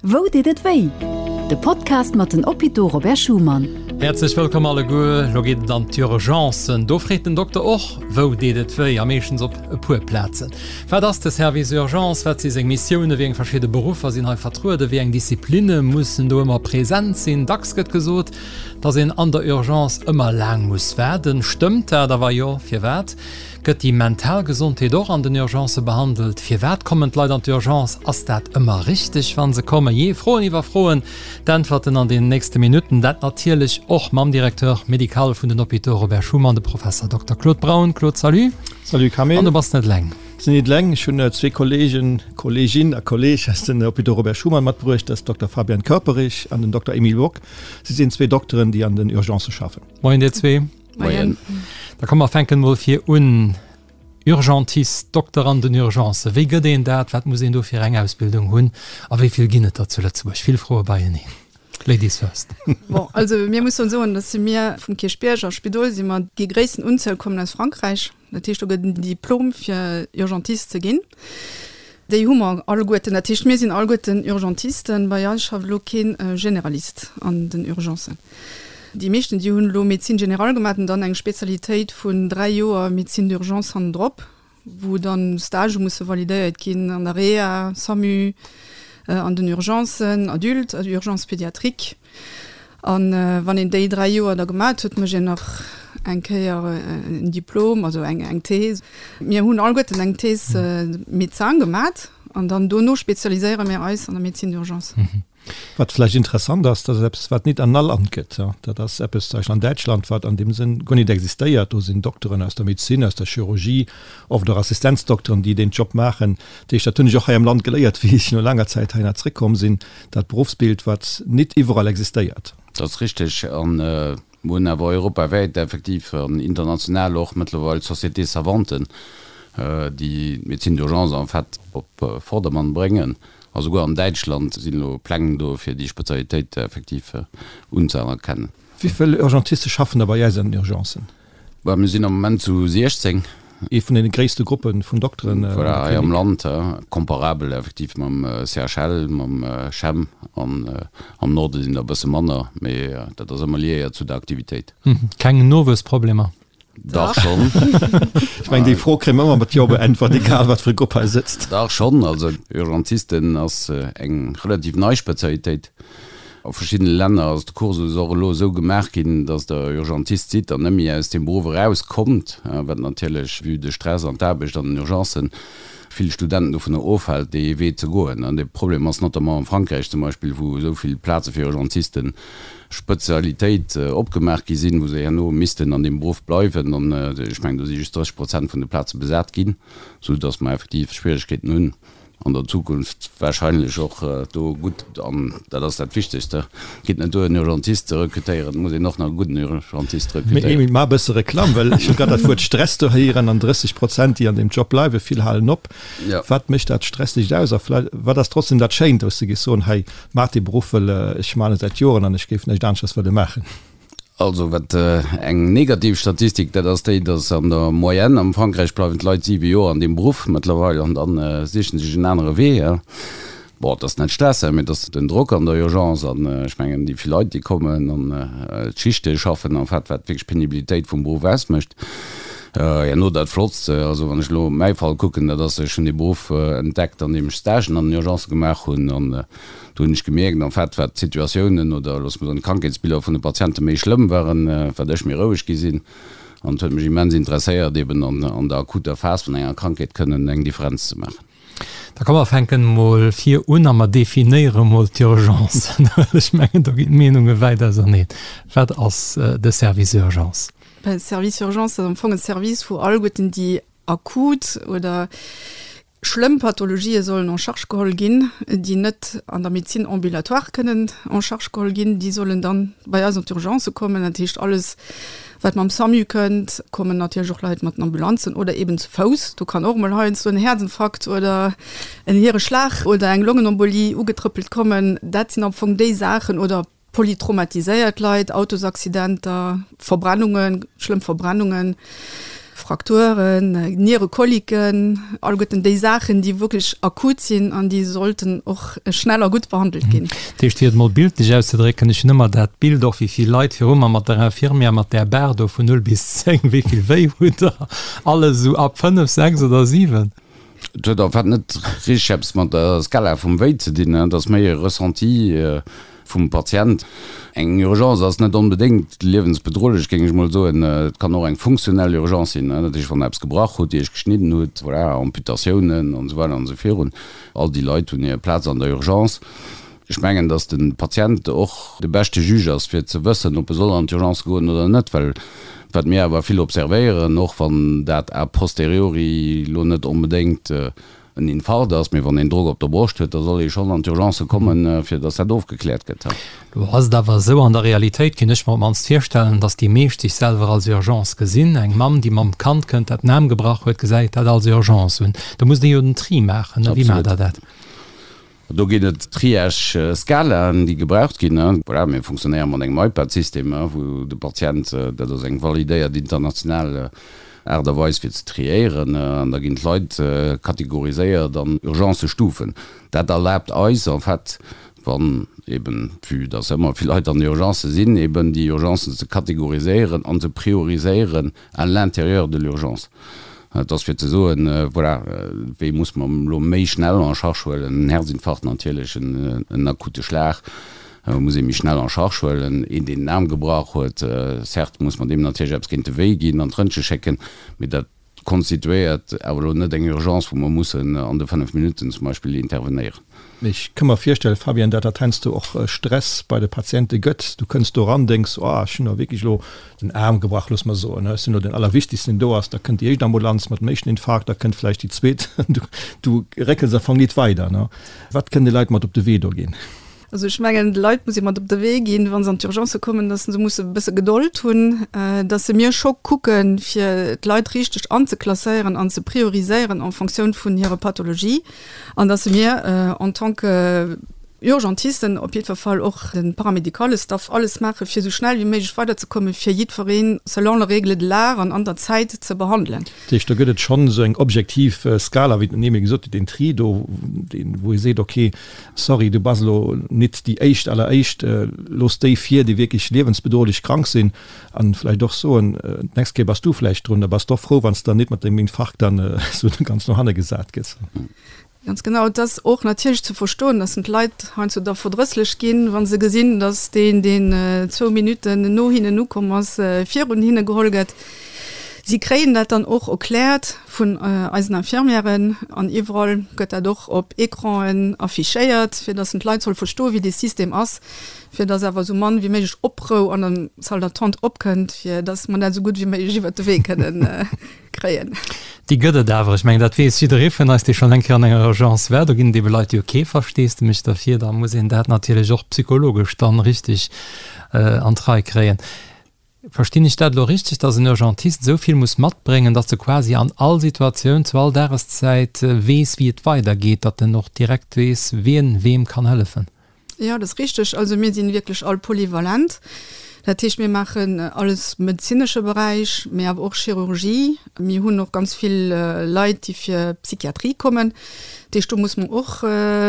Wou deet et wéi? De Podcast mat den Hôpitaux Robert Schuman. Häerzlech wëllkomm alleguer. Lo geet et an d'Urgencen. Do freet den Dokter och, Wou deet et wéi? A meeschtens op e puer Plazen. Wat ass de Service Urgence? Wat si seng Missiounen? Wéi eng verschidde Beruffer sinn hei vertrueden? Wéi eng Disziplinne mussen do ëmmer present sinn? Dacks gëtt gesot, dass een an der Urgence ëmmer laang muss waarden. Stëmmt dat? A wa jo, firwat? Gëtt déi mental Gesondheet och an den Urgencë behandelt? Firwat kommen d'Leit an d'Urgence? Ass dat ëmmer richteg, wa se kommen? Jee, Froen iwwer Froen, d'Äntwerten an den nächste Minutten. Dat natierlech och mam Directeur médical vun den Hôpitaux Robert Schuman, de Professer Dokter Claude Braun. Claude, salut. Salut Camille. An du bass net eleng. Sinn net eleng. Ech hunn zwee Kollegen, Kollegin a Kolleg aus den Hôpitaux Robert Schuman matbruecht. Dat ass Dokter Fabian Körperich an den Dokter Emile Bock. Si sinn zwee Dokteren, déi an den Urgencë schaffen. Moien dir zwee. Moien. Da komm mer fänken mol vir un. Urgentist, Dokter an den Urgencen, wéi gëtt een dat? Wat muss een do fir eng Ausbildung hunn? A wéi vill ginn et der zu Lëtzebuerg? Vill Froe beieneen. Ladies first. Bon, also mir mussen soen, dass si mir vum Kierchbierg a Spidol si mer déi gréissten Unzuel kommen aus Frankräich. Dat heescht, do gëtt en Diplom fir Urgentist ze ginn. Déi hu mer alleguerten. Dat heescht, mir sinn alleguerten Urgentisten. Bei eis schafft elo kee Generalist an den Urgencen. Déi meeschten, déi hunn elo Médecine générale gemaach an dann eng Spezialitéit vun 3 Joer Médecine d'urgence hannendrop, wou dann Stagë musse validéiert ginn an der Reha, SAMU, an den Urgencen, Adultes, Urgences pédiatriques. An wann een déi 3 Joer da gemat huet, mécht een nach eng Kéier en Diplom, also eng eng These. Mir hunn alleguerten eng Thèse médecin gemat an dann dono spezialiséiere mir eis an der Médecine d'urgence. Wat vläicht interessant ass, dat ass eppes, wat nit an all Land gëtt. Dat ass eppes, zum Beispill an Däitschland, wat an deem Sënn guer nit existéiert. Do sinn Dokteren aus der Medezin, aus der Chirurgie, oft och Assistenzdokteren, déi deen Job maachen. Dat heescht, dat hunn ech och hei am Land geléiert, wéi ech no laanger Zäit heihinner zréckkomm sinn, dat Beruffsbild, wat nit iwwerall existéiert. Dat ass richteg. A mir hunn awer europawäit effektiv an international och mëttlerweil Sociétés savantes, déi d'Médecine d'urgence en fait op Vordermann bréngen. A souguer an Däitschland sinn elo Pläng do, fir déi Spezialitéit effektiv unzëerkennen. Wéi vill Urgentiste schaffen da bei äis an den Urgencen? Bah, mir sinn am Moment zu 16. Ee vun deene gréisste Gruppe vun Dokteren an der Klinik. Voilà, hei am Land, comparabel effektiv mam CHL, mam CHEM an am Norde sinn der e bësse manner, mee dat ass ëmmer liéiert zu der Aktivitéit. Keng Nowuessproblemer? Dach schonn. Ech mengen, déi Fro kréie mer ëmmer mat Jo beäntwert, egal wat fir e Grupp hei sëtzt. Dach schonn. Also Urgentisten ass eng relativ nei Spezialitéit. A verschiddene Länner ass de Kursus och elo esou gemaach ginn, datt Der Urgentist sidd an net méi aus deem Beruff erauskommt, wat natierlech, vue de Stress an d'Aarbecht an den Urgencen, vill Studenten dovunner ofhält, dee Wee ze goen. An dee Problem ass notamment am Frankräich zum Beispill, wou esou vill Plaze fir Urgentisten, Spezialitéit, opgemaach gi sinn, wou se herno missten an deem Beruff bleiwen. An ech mengen, do si just 30 Prozent vun de Plaze besat ginn, soudatt mer effektiv Schwieregkeeten hunn, an der Zukunft wahrscheinlech och do gutt, an dat ass dat Wichtegste, et geet net duer en Urgentist ze rekrutéieren, et muss een och nach e gudden Urgentist Mee rekrutéieren. Emile, maach e bësse Reklamm, well ech hu grad dat Wuert Stress do héieren an 30 Prozent, déi an deem Job bleiwen, vill halen op. Ja. Wat mécht dat Stressegt aus a vläicht, wat ass trotzdem dat Schéint, wou s de géifs soen, hei, maach dee Beruff, wëll ech maan e säit Joren an ech géif näischt aneschters wëlle maachen? Also wat eng negativ Statistik, dat ass déi, datt an der Moyenne am Frankräich bleiwen d'Leit 7 Joer an deem Beruff mëttlerweil an da sichen sech en anere Wee. Bon, et ass net Stress, mee et ass den Drock an der Urgence an ech mengen déi vill Leit déi kommen an d'Schichte schaffen en fait, wat wierklech d'Penibilitéit vum Beruff ausmécht. Herno dat Flottst, also wann ech elo mäi Fall kucken, dat ass, ech hunn dee Beruff entdeckt an deem ech Stagen an den Urgencë gemaach hunn an Do hunn ech gemierkt, en fait, wat d'Situatiounen oder loosse mer soen d'Krankheetsbiller vun de Patiente méi schlëmm waren, wat ech méi roueg gi sinn. An et huet mech immens interesséiert, eben an der akuter Phas vun enger Krankheet kënnen eng Differenz ze maachen. Da komm mer fänken emol vir un a mer definéiere mol d'Urgence, well ech mengen, do ginn d'Meenunge wäit auserneen. Wat ass de Service Urgence? Ben, Service Urgence ass am Fong e Service, wou alleguerten déi akut oder Schlëmm Pathologië sollen en charge geholl ginn, déi net an der Médecine ambulatoire kënnen en charge geholl ginn. Déi sollen dann bei eis an d'Urgence kommen. Dat heescht, alles, wat mam SAMU kënnt, kommen natierlech och Leit mat den Ambulanzen oder eben zu Fouss. Do kann och emol heiansdo en Häerzinfarkt oder en Hiereschlag oder eng Longenembolie ugetrëppelt kommen. Dat sinn am Fong déi Saachen. Oder Polytraumatiséiert Leit, Autosaccidenter, Verbrennungen, schlëmm Verbrennungen. Frakturen, Nierekoliken, alleguerten déi Saachen, déi wierklech akut sinn an déi sollten och schnell a gutt behandelt ginn. Dat heescht, fir et emol bildlech auszedrécken, ech hunn ëmmer dat Bild och, wéi vill Leit viru mer mat der Infirmière mat där Bar do vun 0 bis 10, wéi vill wéi hutt Der? Alles esou ab 5, 6 oder 7? Et huet en fait net richteg eppes mat der Skala vum Wéi ze dinn, et ass méi e Ressenti vum Patient. Eng Urgence ass net onbedéngt liewensbedrohlech, géing ech mol soen. Et kann och eng funktionell Urgence sinn, dat heescht, wann Der eppes gebrach hutt, Iech geschnidden hutt, voilà, Amputatiounen an esou weider an esou virun. All déi Leit hunn hir Plaz an der Urgence. Ech mengen, datt de Patient och de beschte Juge ass, fir ze wëssen, ob e soll an d'Urgence goen oder net. Well wat mir awer vill observéieren, och wann dat a posteriori elo net onbedéngt en Infarkt ass, mee wann een Drock op der Broscht huet, da soll ee schonn an d'Urgence kommen, fir datt dat ofgekläert gëtt. Lo ass et awer esou, an der Realitéit kéint ech mer op d'mannst virstellen, datt déi meescht sech selwer als Urgence gesinn. Eng Mamm, déi mam Kand kënnt, dat den Aarm gebrach huet, gesäit dat als Urgence un. Do musst Dir jo den Tri maachen, ne? Wéi maacht Der dat? Do ginn et Triage-Skalaen, déi gebraucht ginn. Voilà, mir funktionéiere mat engem iPad-System, wou de Patient, dat ass eng validéiert international Aart a Weis fir ze triéieren, an da ginn d'Leit kategoriséiert an Urgencëstufen. Dat erlaabt eis en fait, wann eben, vue dass ëmmer vill Leit an Urgencë sinn, eben déi Urgencen ze kategoriséieren an ze prioriséieren à l'intérieur de l'urgence. Et ass fir ze soen, voilà, wee muss mer elo méi schnell en charge huelen, en Herzinfarkt natierlech, en akute Schlag muss ee méi schnell en charge huelen, een deen den Aarm gebrach huet, certes muss mer deem natierlech eppes géint de Wéi ginn an d'Rëntge schécken, mee dat konstituéiert awer elo net eng Urgence, wou mer mussen an de 5 Minutten zum Beispill intervenéieren. Ech ka mer virstellen, Fabienne, dat dat heiansdo och Stress bei de Patiente gëtt. Du kënns do eran, denks, oh, ech hunn elo wierklech elo den Aarm gebrach, looss mer soen, ech sinn elo den Allerwichtigsten, deen do ass. Da kënnt déi éischt Ambulanz mat dem éischten Infarkt, da kënnt vläicht déi zweet. Du réckels am Fong nit weider. Wat kënnen déi Leit mat op de Wee do ginn? Also ech mengen, de Leit muss ee mat op de Wee ginn, wa se an d'Urgencë kommen, datt se musse e bësse Gedold hunn, datt se mir scho kucken, fir d'Leit richteg anzeklasséieren an ze prioriséieren en Fonctioun vun hirer Pathologie an datt se mir en tant que Urgentisten op jiddwer Fall och de paramédicale Staff alles maache fir esou schnell wéi méiglech weiderzekommen, fir jiddweree selon les règles de l'art an an der Zäit ze behandelen. Dat heescht, do gëtt et schonn esou eng objektiv Skala, wéi d'Noémie gesot huet, deen Tri do, deen, wou ee seet, okay, Sorry, du bass elo nit déi éischt alleréischt. Looss déi vir, déi wierklech liewensbedrohlech krank sinn. An vläicht och soen, d'nächst Kéier bass du vläicht drun. Da bass de och frou, wann s de dann nit mat dengem Infarkt dann esou ganz no hanne gesat gëss. Ganz genau. Et ass och natierlech ze verstoen, dass d'Leit heiansdo da verdrësslech ginn, wa se gesinn, dass deen, deen zwou Minutten no hinnen ukomm ass, virun hinne geholl gëtt. Si kréien dat dann och erkläert vun eisen Infirmièren an iwwerall gëtt dat och op Ecranen affichéiert, fir dass d'Leit solle verstoen, wéi dee System ass, fir dass awer esou mann wéi méiglech Oprou an der Salle d'attente opkënnt, fir dass mer dat esou gutt wéi méiglech iwwert de Wee kënnen kréien. Déi gëtt et awer. Ech mengen, dat weess jidderee vun eis, dee schonn eng Kéier an enger Urgence war. Do ginn et ebe Leit, déi hu kee Versteesdemech derfir. Da muss een dat natierlech och psychologesch dann richteg an d'Rei kréien. Verstinn ech dat elo richteg, dass en Urgentist esou vill muss matbréngen, dass e quasi an all Situatioun, zu all Dageszäit weess, wéi et weidergeet, datt en och direkt weess, wien weem kann hëllefen? Jo, dat ass richteg. Also mir sinn wierklech all polyvalent. Dat heescht, mir maachen alles medezinesche Beräich, mee awer och Chirurgie. Mir hunn och ganz vill Leit, déi fir Psychiatrie kommen. Dat heescht, do muss mer och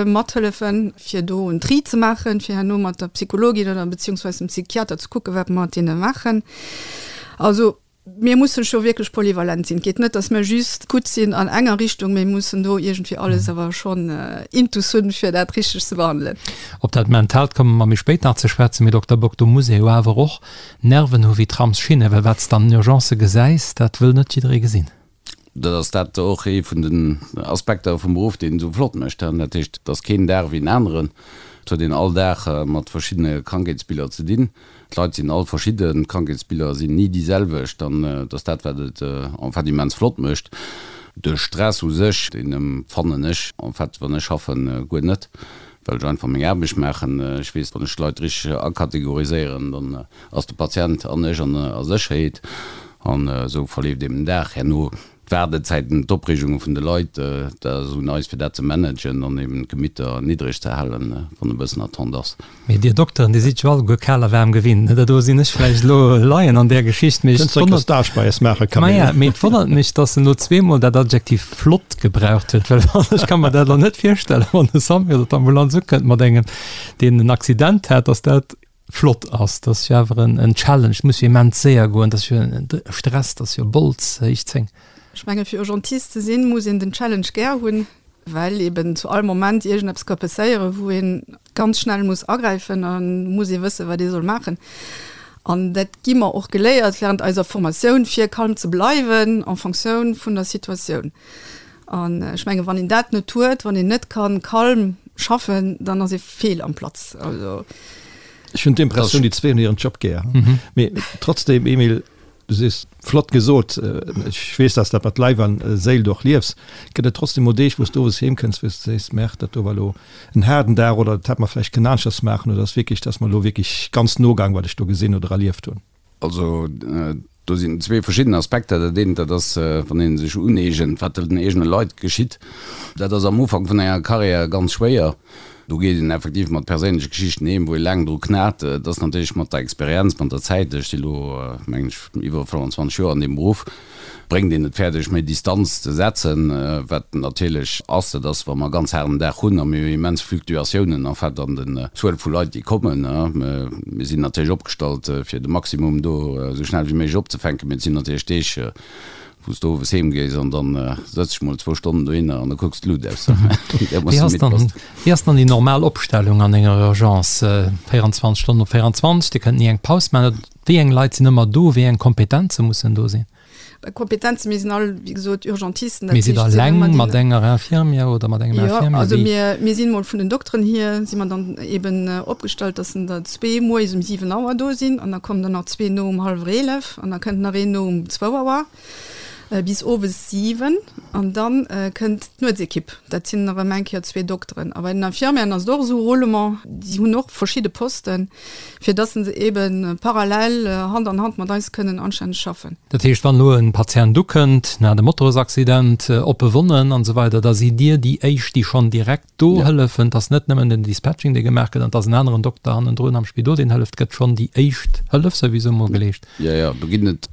mathëllefen, fir do en Tri ze maachen, fir herno mat der Psychologin oder beziehungsweise dem Psychiater ze kucken, wat mer mat deene maachen. Also mir mussen scho wierklech polyvalent sinn. Et geet net, datt mir just gutt sinn an enger Richtung, mee mir mussen do iergendwéi alles awer schonn intus hunn, fir dat richteg ze behandelen. Op dat Mentaalt komme mer méi spéit nach ze schwätzen. Mee Dokter Bock, do muss ee jo awer och Nerven hu wéi Tramsschinnen, well wat s de an den Urgencë gesäis, dat wëll net jidderee gesinn. Dat ass dat och ee vun den Aspekter vum Beruff, deen esou flott mécht. Dat heescht, et ass keen Dag wéi en aneren. Et huet een all Dag mat verschiddene Krankheetsbiller ze dinn. D'Leit sinn all verschidden, d'Krankheetsbiller sinn ni déi selwecht an et ass dat, wat et en fait immens flott mécht. De Stress u sech, deen empfannen ech en fait, wann ech schaffen, guer net, well ech einfach meng Aarbecht maachen. Ech weess, wann ech d'Leit richteg akategoriséieren, dann ass de Patient an ech an a Sécherheet an esou verleeft eben den Dag. Herno. D'Waardezäiten, d'Opreegunge vun de Leit, dat ass un eis fir dat ze managen an eben d'Gemitter niddreg ze halen, wann e bëssen Attente ass. Mee dir Dokteren, dir sidd jo alleguer kal a waarm gewinnt, ne? Do sinn ech vläicht elo Laien an där Geschicht, mee ech wonnert, Stage bei eis maachen, Camille. Maja, mee et wonnert mech, dass en elo zweemol dat Adjektiv flott gebraucht huet, well wann, ech ka mer dat elo net virstellen, wann de Samu oder d'Ambulanz ukënnt mat engem, deen en Accident hat, dass dat flott ass, dat ass jo awer en Challenge, et muss jo immens séier goen, dat ass jo e Stress, dat ass jo Bols héich 10. Ech menge fir Urgentist ze sinn, muss een den Challenge gär hunn, well eben zu all Moment iergendeppes ka passéieren, wou ee ganz schnell muss agräifen a muss ee wëssen, wat ee soll maachen. An dat gi mer och geléiert während eiser Formatioun, fir calm ze bleiwen en Fonctioun vun der Situatioun. An ech menge wann een dat net huet, wann een net kann calm schaffen, dann ass ee fehl am Platz. Also. Ech hunn d'Impressioun, déi zwee hunn hiren Job gär. Mee trotzdem, Emile, du sees, flott gesot, ech weess, dass dat mat Leif an Séil och liefs. Gëtt et trotzdem mol Deeg, wou s du owes heem kënns, wou s du sees, Merde, dat do war elo en haarden Dag oder dat hätt mer vläicht kënnen aneschters maachen oder ass wierklech, dat ass mer elo wierklech ganz no gaang, wat ech do gesinn oder erlieft hunn? Also do sinn zwee verschidden Aspekter. Dat eent, dat ass, wann ee sech uneegent, wat den eegene Leit geschitt. Dat ass am Ufank vun enger Karriär ganz schwéier. Do geet een effektiv mat perséinleche Geschichten heem, wou ee laang dru knat. Et ass natierlech mat der Experienz, mat der Zäit, ech si elo, mengen ech, iwwer 25 Joer an deem Beruff, bréngt een et fäerdeg, méi Distanz ze setzen. Wat natierlech ass, dat ass, wa mer e ganz haarden Dag hunn a mir hu immens Fluctuatiounen en fait an den Zuel vu Leit, déi kommen. Mir sinn natierlech opgestallt, fir de Maximum do esou schnell wéi méiglech opzefänken, mee et sinn natierlech Deeg, wou s de owes heem gees an da sëtz ech mol zwou Stonnen dohinner an da kucks d'Lut aus. Wéi ass dann, wéi ass dann déi normal Opstellung an enger Urgence? 24 Stonnen op 24, Dir kënnt ni eng Paus maachen. Wéi eng Leit sinn ëmmer do? Wéi eng Kompetenze mussen do sinn? Kompetenzen, mir sinn all, wéi gesot, Urgentisten. Mee sidd Der eleng mat enger Infirmière oder mat engem Infirmier? Jo, also mir, mir sinn mol vun den Dokteren hier, si mer dann eben opgestallt, dass der zwee moies um 7 Auer do sinn an da kommen der nach zwee no um hallwer 11 an da kënnt nach een no um zwou Auer bis owes 7 an dann kënnt d'Nuetsekipp. Dat sinn erëm eng Kéier zwee Dokteren. A bei den Infirmieren ass et och esou, Roulement, déi hunn och verschidde Posten. fir dass se eben parallel Hand an Hand mat eis kënnen anstänneg schaffen. Dat heescht, wann elo e Patient ukënnt, en hat e Motorsaccident, oppe Wonnen an esou weider, da sidd Dir déi éischt, déi schonn direkt do hëllefen. Et ass net nëmmen den Dispatching, dee gemaach gëtt, an et ass en aneren Dokter hannendrun am Spidol, deen hëlleft. Et gëtt schonn déi éischt Hëllef souwisou mol geleescht. Jo, jo, do ginn et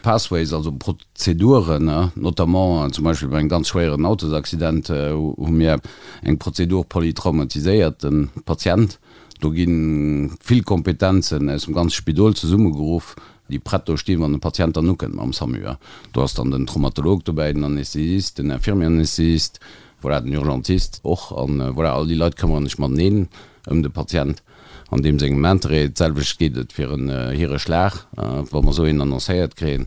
Pathways, also Prozeduren, notamment zum Beispill bei engem ganz schwéieren Autosaccident hu mir eng Prozedur polytraumatiséierte Patient. Do gi vill Kompetenzen aus dem ganze Spidol zesummegeruff, déi prett do stinn, wann de Patient dann ukënnt mam SAMU. Do ass dann den Traumatolog dobäi, den Anästhesist, den Infirmier-Anästhesist, voilà, den Urgentist och. An voilà, all déi Leit këmmere sech mateneen ëm de Patient an deem sengem Interêt. D'selwecht geet et fir en Hireschlag, wa mer esou een annoncéiert kréien,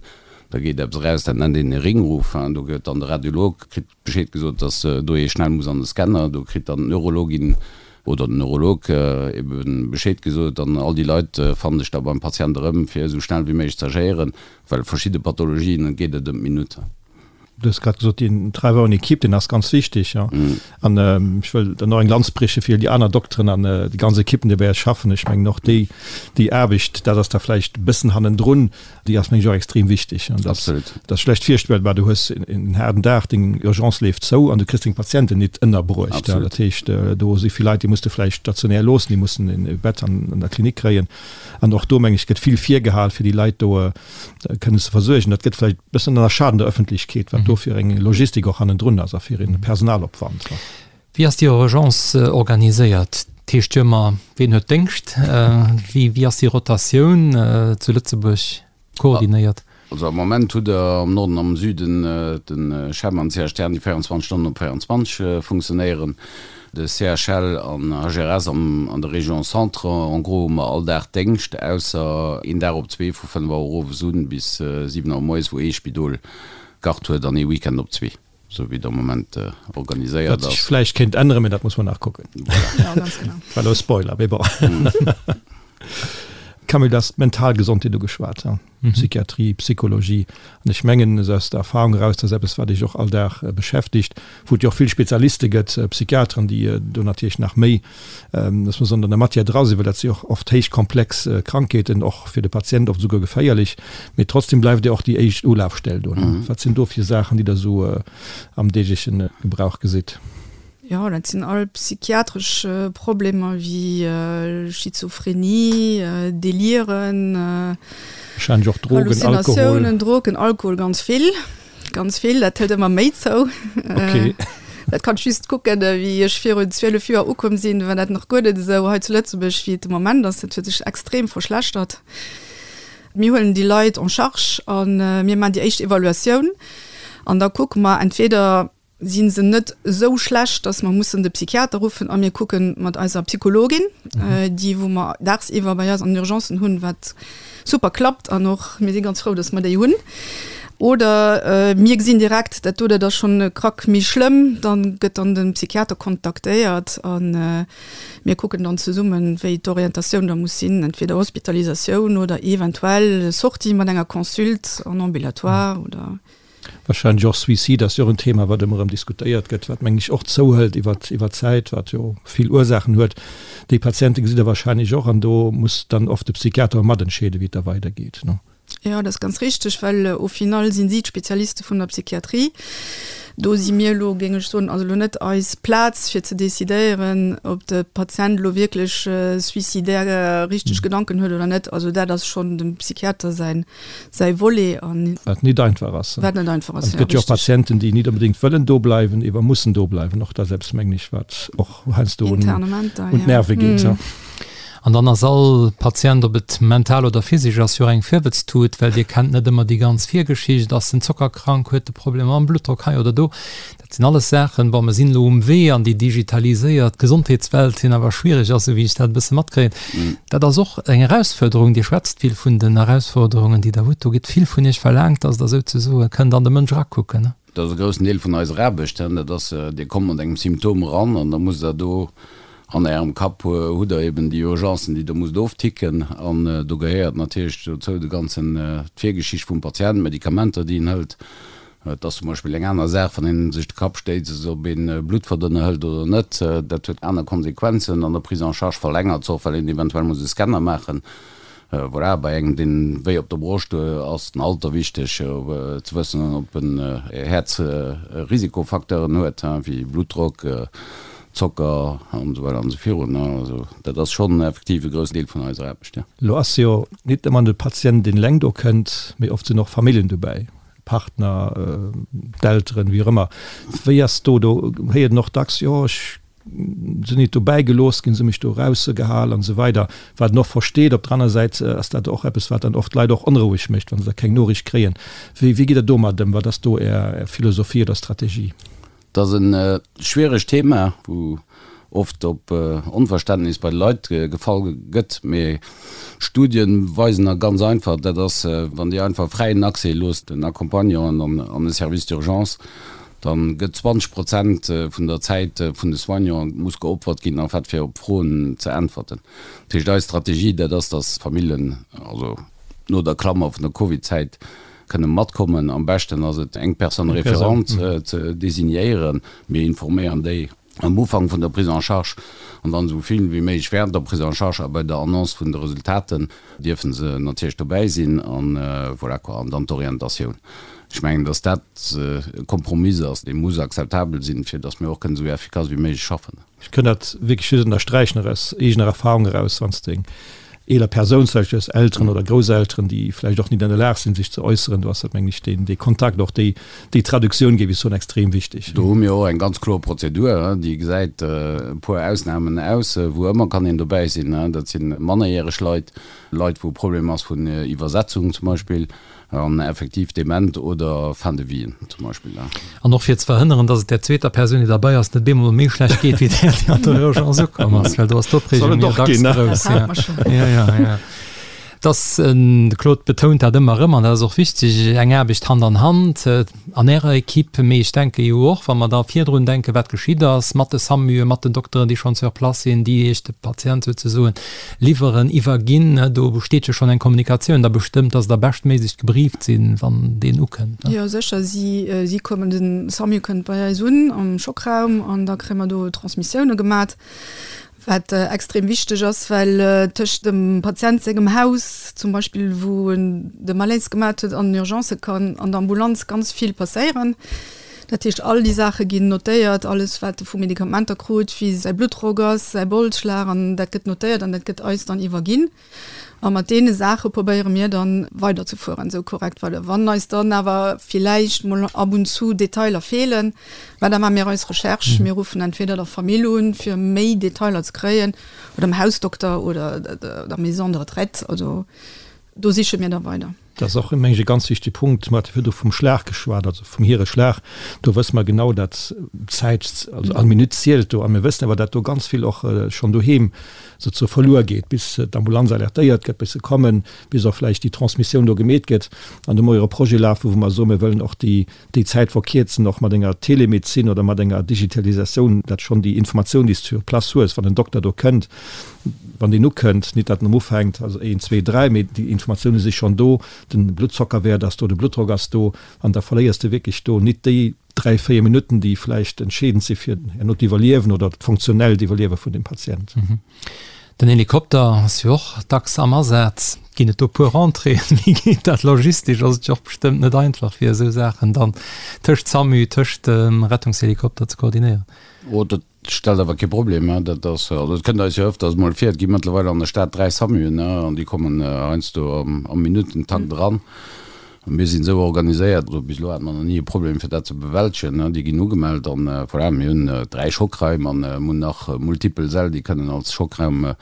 da geet eppes eraus, dat nennt een e Ringruf. Do gëtt dann de Radiolog, kritt Bescheed gesot, dass do ee schnell muss an de Scanner. Do kritt dann d'Neurologin oder den Neurolog ebe Bescheed gesot an all déi Leit fannen sech da beim Patient erëm, fir esou schnell wéi méiglech ze agéieren, well verschidde Pathologien, et geet et ëm d'Minutt. Du hues grad gesot, deen Travail en équipe, deen ass ganz wichteg. An ech wëll dann och eng Lanz brieche fir déi aner Dokteren an déi ganz Ekippen, déi bei eis schaffen. Ech mengen och déi, déi Aarbecht, dat ass da vläicht e bëssen hannendrun, Déi ass mengen ech och extrem wichteg. An dat ass schlecht virstellbar, du hues en haarden Dag, deng Urgence leeft zou an du kriss deng Patienten nit ënnerbruecht. Dat heescht, do si vill Leit, déi muss de vläicht stationär loossen, déi mussen e Bett an der Klinik kréien. An och do meng ech gëtt vill virgehal, fir déi Leit do kënnen ze versuergen. Dat gëtt vläicht e bëssen ënnerschaat an der Ëffentlechkeet, wat do fir eng Logistik och hannendrun ass a fir e Personalopwand. Wéi ass déi Urgence organiséiert? Dat heescht jo ëmmer, ween huet Déngscht? Wéi ass déi Rotatioun zu Lëtzebuerg koordinéiert? Also am Moment hutt Der am Norden an am Süden de CHEM an d'CHTN, déi 24 Stonnen op 24 funktionéieren. De CHL an HRS an der Région Centre. En gros hu mer all Dag Déngscht, ausser een Dag op zwee vu 5 Auer owes un bis 7 Auer moies, wou ee Spidol Garde huet an ee Weekend op zwee. Sou wéi et am Moment organiséiert ass. Wat sech vläicht kéint änneren, mee dat muss mer nach kucken. Voilà. Ja, ganz genau. War elo e Spoiler, mee bon. Camille, du has d'mental Gesondheet ugeschwat, Psychiatrie, Psychologie. An ech mengen, esou aus der Erfahrung eraus, dat ass eppes, wat Iech och all Dag beschäftigt, wou et jo och vill Spezialiste gëtt, Psychiateren, déi do natierlech nach méi, dass mer soen, an der Matière dra sinn, well dat si och oft héich komplex Krankheeten, och fir de Patient oft esouguer geféierlech. Mee trotzdem bleift Dir och déi éischt Ulafstell do. Wat sinn do fir Saachen, déi Der esou am deegleche Gebrauch gesitt? Jo, dat sinn all psychiatresch Problemer wéi Schizophrenie, Deliren, Wahrscheinlech och Drogen, Alkohol. Halluzinatiounen, Drogen, Alkohol, ganz vill, ganz vill. Dat hëlt ëmmer méi zou. Okay. Dat kann ech just kucken, wéi ech virun 12 Joer ukomm sinn, war dat nach guer net esou hei zu Lëtzebuerg, wéi et de Moment ass. Dat huet sech extrem verschlechtert. Mir huelen déi Leit en charge a mir maachen déi éischt Evaluatioun an da kucke mer entweder, si se net esou schlecht, dass mer mussen de Psychiater ruffen a mir kucke mat eiser Psychologin, déi wou mer dagsiwwer bei eis an den Urgencen hunn, wat super klappt an och mir si ganz frou, dass mer déi hunn. Oder mir gesinn direkt, dat do, dat ass schonn e Krack méi schlëmm, da gëtt dann de Psychiater kontaktéiert a mir kucken dann zesummen, wéi d'Orientatioun da muss sinn, entweder Hospitalisatioun oder eventuell Sortie mat enger Consulte en ambulatoire oder. Wahrscheinlech och Suicide ass jo och en Thema, wat ëmmer erëm diskutéiert gëtt, wat mengen ech och zouhëlt iwwer iwwer d'Zäit, wat jo vill Ursaachen huet. Déi Patiente gesitt Der wahrscheinlech och an do muss dann oft de Psychiater matentscheeden, wéi et da weidergeet, ne? Jo, dat ass ganz richteg, well au final sinn si d'Spezialiste vun der Psychiatrie. Do si mir elo, géing ech soen, also elo net eis Plaz fir ze decidéieren, ob de Patient elo wierklech suicidaire richteg Gedanken huet oder net. Also dat ass schonn dem Psychiater säin säi Volet an. Wat nit einfach ass. Wat net einfach ass, jo, richtig. Et gëtt jo och Patienten, déi nit onbedéngt wëllen do bleiwen, ewer mussen do bleiwen. Och dat ass eppes, mengen ech, wat och heiansdo un d'Nerve geet. An dann ass all Patient, ob et mental oder physesch ass, jo och eng Virwëtztut, well Dir kennt net ëmmer déi ganz Virgeschicht. Ass en zockerkrank, huet e Problemer mam Bluttdrock hei oder do? Dat sinn alles Saachen, bon, mer sinn elo um Wee an déi digitaliséiert Gesondheetswelt hin, awer schwierig ass, esou wéi ech dat e bësse matkréien. Dat ass och eng Erausfuerderung. Dir schwätzt vill vun den Erausforderungen, déi Der hutt. Do gëtt vill vun Iech verlaangt, dass Der souzesoe kënnt an de Mënsch erakucken. Dat ass e groussen Deel vun eiser Aarbecht. Dat ass, Dir kommt mat engem Symptom eran an da musst Der do an Ärem Kapp hutt Der eben déi Urgencen, déi Der musst ofticken. An do gehéiert natierlech dozou de ganzen, d'Virgeschicht vum Patient, d'Medikamenter, déi en hëlt, Et ass zum Beispill eng aner Saach, wann een sech de Kapp stéisst, ob een Bluttverdënner hëlt oder net. Dat huet aner Konsequenzen an der Prise en charge verlängert se och, well een eventuell muss e Scanner maachen. Voilà, bei engem, deen wéi op der Broscht huet, ass den Alter wichteg, ze wëssen, ob en Häerzrisikofacteuren huet, wéi Bluttdrock, Zocker an esou weider an esou virun. Also dat ass schonn effektiv e groussen Deel vun eiser Aarbecht, jo. Elo ass jo nit ëmmer de Patient, deen eleng do kënnt, mee oft sinn och Familljen dobäi. Partner, d'Elteren, wéi och ëmmer. Wéi ass do, do héiert een och dacks, jo ech sinn nit dobäi gelooss ginn, se hu mech do erausgehal an esou weider. Wat een och versteet. Op der aner Säit ass dat och eppes, wat dann oft d'Leit och onroueg mécht, wa se da keng Noriicht kréien. Wéi wéi gitt Der domat ëm? Wat ass do Är Philosophie oder Strategie? Dat ass e schwieregt Thema, wou oft op Onverständnis bei de Leit gefall gëtt. Mee Studien weisen a ganz einfach, dat ass, wann Dir einfach fräien Accès loosst den Accompagnanten an de Service d'urgence, da gëtt 20 Prozent vun der Zäit vun de Soignanten muss geopfert ginn, en fait, fir op Froen ze äntwerten. Dat heescht, eis Strategie, dat ass, dass Famillen, also no der Klammer vun der Covid-Zäit, kënne matkommen. Am beschten ass et, eng Personne référente ze designéieren. Mir informéieren déi am Ufank vun der Prise en charge an dann esou vill wéi méiglech während der Prise en charge a bei der Annonce vun de Resultaten dierfe se natierlech dobäi sinn an voilà quoi. An dann d'Orientatioun. Ech mengen, dass dat e Kompromiss ass, dee muss akzeptabel sinn, fir dass mir och kënnen esou effikass wéi méiglech schaffen. Ech kënn dat wierklech just ënnersträichen, och aus eegener Erfahrung eraus, wann s de eng eeler Persoun, zum Beispill aus Elteren oder Grousselteren, déi vläicht och nit an der Lag sinn, sech ze äusseren, do ass dat, mengen ech, deen, dee Kontakt, och déi, déi Traduktioun, géif ech soen, extrem wichteg. Do hu mir och eng ganz kloer Prozedur, déi gesäit e puer Ausnamen aus, wou ëmmer kann een dobäi sinn. Dat si mannerjäreg Leit, Leit, wou e Problem ass vun Iwwersetzung zum Beispill, An effektiv dement oder fin de vie zum Beispill. An och fir ze verhënneren, dass et där zweeter Persoun, déi derbei ass, net bemol méi schlecht geet wéi där, déi an der Urgence ukomm ass, well do ass d'Opreegung jo dacks grouss. Ja, ja, ja. Dass, de Claude betount dat ëmmer erëm, an dat ass och wichteg, eng Aarbecht Hand an Hand an Ärer Equipe, mee ech denke jo och, wa mer da virdrun denken, wat geschitt ass mat de SAMUe, mat den Dokteren, déi schonn sur place sinn, déi Iech de Patient souzesoen liwweren, iwwerginn, do besteet jo schonn eng Kommunikatioun da bestëmmt, dass Der beschtméiglech gebrieft sinn, wann deen ukënnt. Jo, sécher. Si, si kommen, de SAMU kënnt bei eis un am Schockraum an da kréie mer do Transmissioune gemat. Wat extrem wichteg ass, well tëscht dem Patient sengem Haus zum Beispill, wou en de Malaise gemat huet, an den Urgencë kann an der Ambulanz ganz vill passéieren. Dat heescht, all déi Saache ginn notéiert, alles wat e vu Medikamenter krut, wéi säi Bluttdrock ass, säi Bolsschlag, an dat gëtt notéiert an dat gëtt eis dann iwwerginn. A mat deene Saache probéiere mir dann weiderzefueren, esou korrekt well wann eis dann awer villäicht mol ab und zu Detailer feelen, mä da maache mir eis Recherche, mir ruffen entweder der Famill un, fir méi Detailer ze kréien, oder dem Hausdokter oder der Maison de retraite, also do siche mir da weider. Dat ass och, meng ech, e ganz wichtege Punkt. Mer hate virdru vum Schlag geschwat, also vum Hireschlag. Do wësse mer genau, datt d'Zäit, also all Minutt zielt do. A mir wëssen awer, datt do ganz vill och schonn doheem souzesoe verluer geet, bis d'Ambulanz alertéiert gëtt, bis se kommen, bis och vläicht déi Transmissioun do gemeet gëtt. An do hu mer jo e Projet lafen, wou mer soen, mir wëllen och déi, déi Zäit verkierzen, och mat enger Telemedezin oder mat enger Digitalisatioun, datt schonn déi Informatioun, déi s de sur place hues, wann en Dokter do kënnt, wann deen ukënnt, nit datt en ufänkt, also een, zwee, dräi, mee déi Informatioune si schonn do, de Bluttzockerwäert ass do, de Bluttdrock ass do, an da verléiers de wierklech do nit déi dräi, véier Minutten, déi vläicht entscheedend si fir herno d'Iwwerliewen oder d'funktionellt Iwwerliewe vun dem Patient. Den Helikopter ass jo och dacks am Asaz. Ginn et do puer Rentréeën? Wéi geet dat logistesch? Ass et jo och bestëmmt net einfach, fir esou Saachen dann tëscht SAMU, tëscht dem Rettungshelikopter ze koordinéieren. Oh, dat stellt awer kee Problem, dat ass, also et kënnt eis jo ëfters mol vir, et gi mëttlerweil an der Stad 3 SAMUen, an déi kommen heiansdo am Minuttentakt eran. A mir sinn esou organiséiert, also bis elo hate mer nach ni e Problem fir dat ze bewältegen, déi ginn ugemellt an voilà, mir hunn 3 Schockraim an mir hunn nach multipel Säll, déi kënnen als Schockraum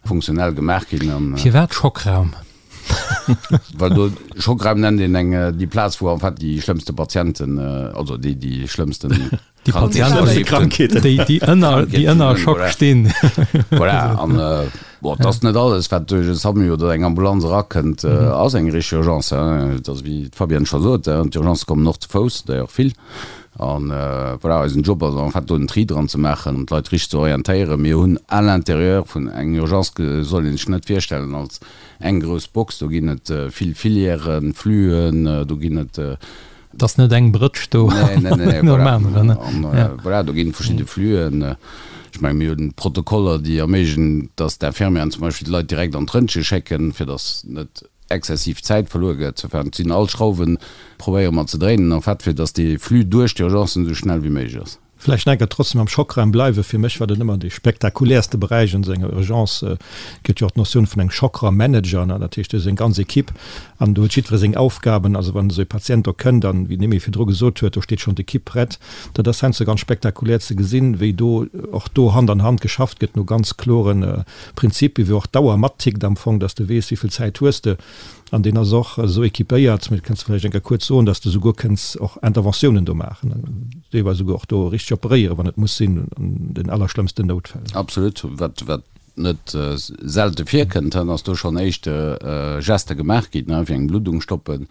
funktionell gemaach ginn. Firwat Schockraum? Well do, Schockraum nennt een eng, déi Plaz wou en fait déi schlëmmste Patienten, also déi déi schlëmmsten Déi Patienten, déi, déi ënner, déi ënner Schock stinn. Voilà, an bon, et ass net alles, wat duerch e SAMU oder eng Ambulanz erakënnt, ass eng richteg Urgence. Et ass, wéi d'Fabienne scho sot, d'Urgencë kommen och ze Fouss, d'ailleurs vill. An voilà, eisen Job ass en fait do den Tri dran ze maachen an d'Leit richteg ze orientéieren. Mir hunn à l'intérieur vun eng Urgence, soll een sech net virstellen als eng grouss Box, do ginn et vill Filièren, Fluen, do ginn et Et ass net eng Brëtsch do nom aneren. Voilà, do ginn et verschidde Fluen. Ech menge mir hunn Protokoller, déi erméiglechen, datt d'Infirmieren zum Beispill d'Leit direkt an d'Röntge schécken, fir datt net exzessiv Zäit verluer gëtt. Enfin, et sinn all Schrauwe probéiere mer ze dréinen, en fait, fir datt dee Flux duerch d'Urgencen esou schnell wéi méiglech ass. Vläicht nach eng Kéier trotzdem am Schockraum bleiwen. Fir mech war dat ëmmer dee spektakuläerste Beräich an esou enger Urgence. Et gëtt jo och d'Notioun vun engem Schockraummanager, ne, dat heescht, do ass eng ganz Equipe an do huet jiddweree seng Aufgaben. Also wann esou e Patient do kënnt an, wéi d'Noémie virdru gesot huet, do steet schonn d'Equipe prett. Dat ass heiansdo ganz spektakulär ze gesinn, wéi do och do Hand an Hand geschafft gëtt no ganz klore Prinzipien, wéi och d'Auer mattickt am Fong, dass de weess, wéi vill Zäit hues de. An deen ass och esou équipéiert, mee dat kënns de vläicht eng Kéier kuerz soen, dass de souguer kënns och Interventiounen do maachen, deelweis souguer och do richteg operéieren, wann et muss sinn, an den allerschlëmmsten Noutfäll. Absolut. Wat, wat net selte virkënnt, dann ass do schonn éischte Geste gemaach ginn, fir eng Bluddung stoppen.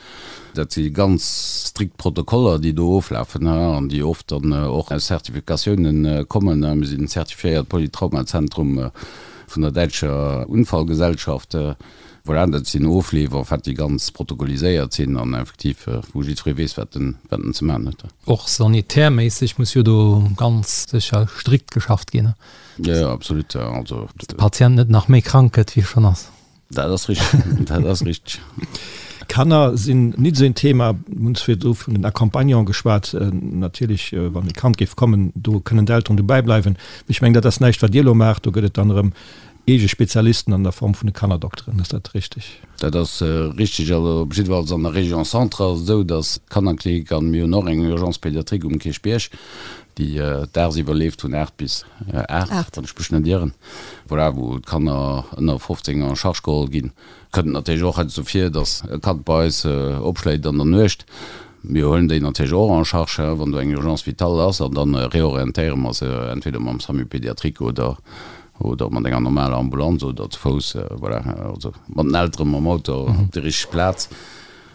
Dat si ganz strikt Protokoller, déi do oflafen an déi oft dann och aus Zertifikatiounen kommen. Mir sinn zertifiéiert Polytraumazentrum vun der däitscher Unfallgesellschaft. Voilà, dat sinn Ofleef en fait, déi ganz protokolliséiert sinn an effektiv wou jiddweree weess, wat en, wat en ze maachen huet. Och sanitärméisseg muss jo do ganz sécher strikt geschafft ginn, ne? Jo, jo, absolut. Also. Dass de Patient net nach méi krank gëtt, wéi e schonn ass. Dat ass richteg, dat ass richteg. Kanner sinn nit esou een Thema. Mir hunn virdru vun den Accompagnanten geschwat. Natierlech, wann e Kand géif kommen, do kënnen d'Elteren dobäi bleiwen. Mee ech mengen, dat ass näischt, wat Dir elo maacht. Do gëtt et dann erëm eege Spezialisten an der Form vun de Kannerdokteren. Ass dat richteg? Dat ass richteg. Also op jiddefalls an der Région Centre ass et esou, datt d'Kannerklinik, an mir hunn och eng Urgence pédiatrique um Kierchbierg, déi dagsiwwer leeft vun 8 bis 8, wann ech mech net ieren, voilà, wou d'Kanner ënner 15 en charge geholl ginn. Kënnt natierlech och heiansdo vir, datt e Kand bei eis opschléit an der Nuecht. Mir huelen déi natierlech och en charge, wann do eng Urgence vitale ass, an da reorientéiere mer se entweder mam SAMU pédiatrique oder. Oder mat enger normaler Ambulanz oder zu Fouss, voilà, also mat den Elteren, mam Auto op déi richteg Plaz.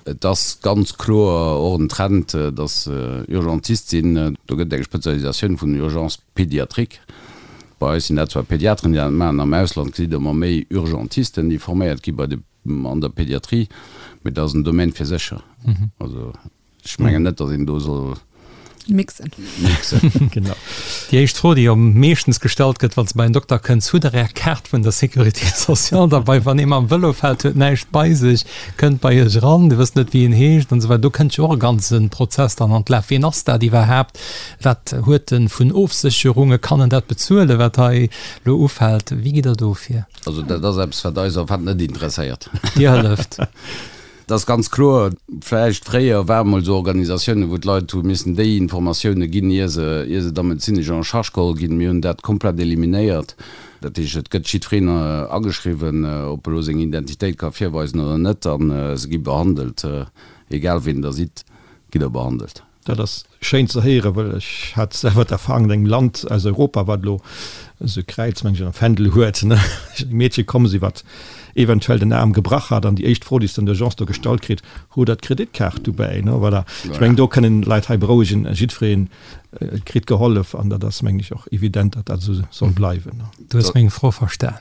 Et ass ganz kloer och en Trend, dass Urgentiste sinn. Do gëtt et eng Spezialisatioun vun Urgence pédiatrique. Bei eis sinn dat zwar Pediateren, déi dat maachen. Am Ausland gesitt Der ëmmer méi Urgentisten, déi forméiert gi bei de, an der Pediatrie. Mee dat ass en Domaine fir sech. Also Ech mengen net, datt een do soll mixen. Mixen. Genau. Déi éischt Fro, déi am meeschtens gestallt gëtt, wann s de bei en Dokter kënns, Hutt Der Är Kaart vun der Sécurité sociale derbei? Wann ee mam Vëlo fält, huet näischt bei sech, kënnt bei Iech eran, Dir wësst net, wéi en heescht an esou weider. Do kënnt jo och e ganze Prozess dann an d'Laf. Wien ass dat iwwerhaapt? Wat huet en vun Ofsécherunge? Kann en dat bezuelen, wat hei elo ufält? Wéi gitt Der do vir? Also dat ass eppes, wat eis en fait net interesséiert. Dir hëlleft. Et ass ganz kloer, vläicht fréier ware mol esou Organisatiounen, wou d'Leit hu missen déi Informatioune ginn, ier se, ier se da medezinesch en charge geholl ginn. Mir hunn dat komplett eliminéiert. Dat heescht, et gëtt jiddwereen ageschriwwen, ob e lo seng Identitéit ka virweisen oder net, a se gi behandelt. Egal wien Der sidd, gitt Der behandelt. Dat ass schéin ze héieren, well ech hat selwer d'Erfahrung an engem Land aus Europa, wat elo esou e Kräiz, meng ech, am Fändel huet, ne, eng Meedche komm si, wat eventuell den Aarm gebrach hat, an déi éischt Fro, déi se an der Urgence do gestallt kritt, Hutt Der d'Kreditkaart dobäi? Ne, voilà. Ech mengen, do kënnen d'Leit hei berouegen, jiddweree kritt gehollef, an dat ass, mengen ech, och evident, datt dat esou soll bleiwen. Du hues meng Fro verstan.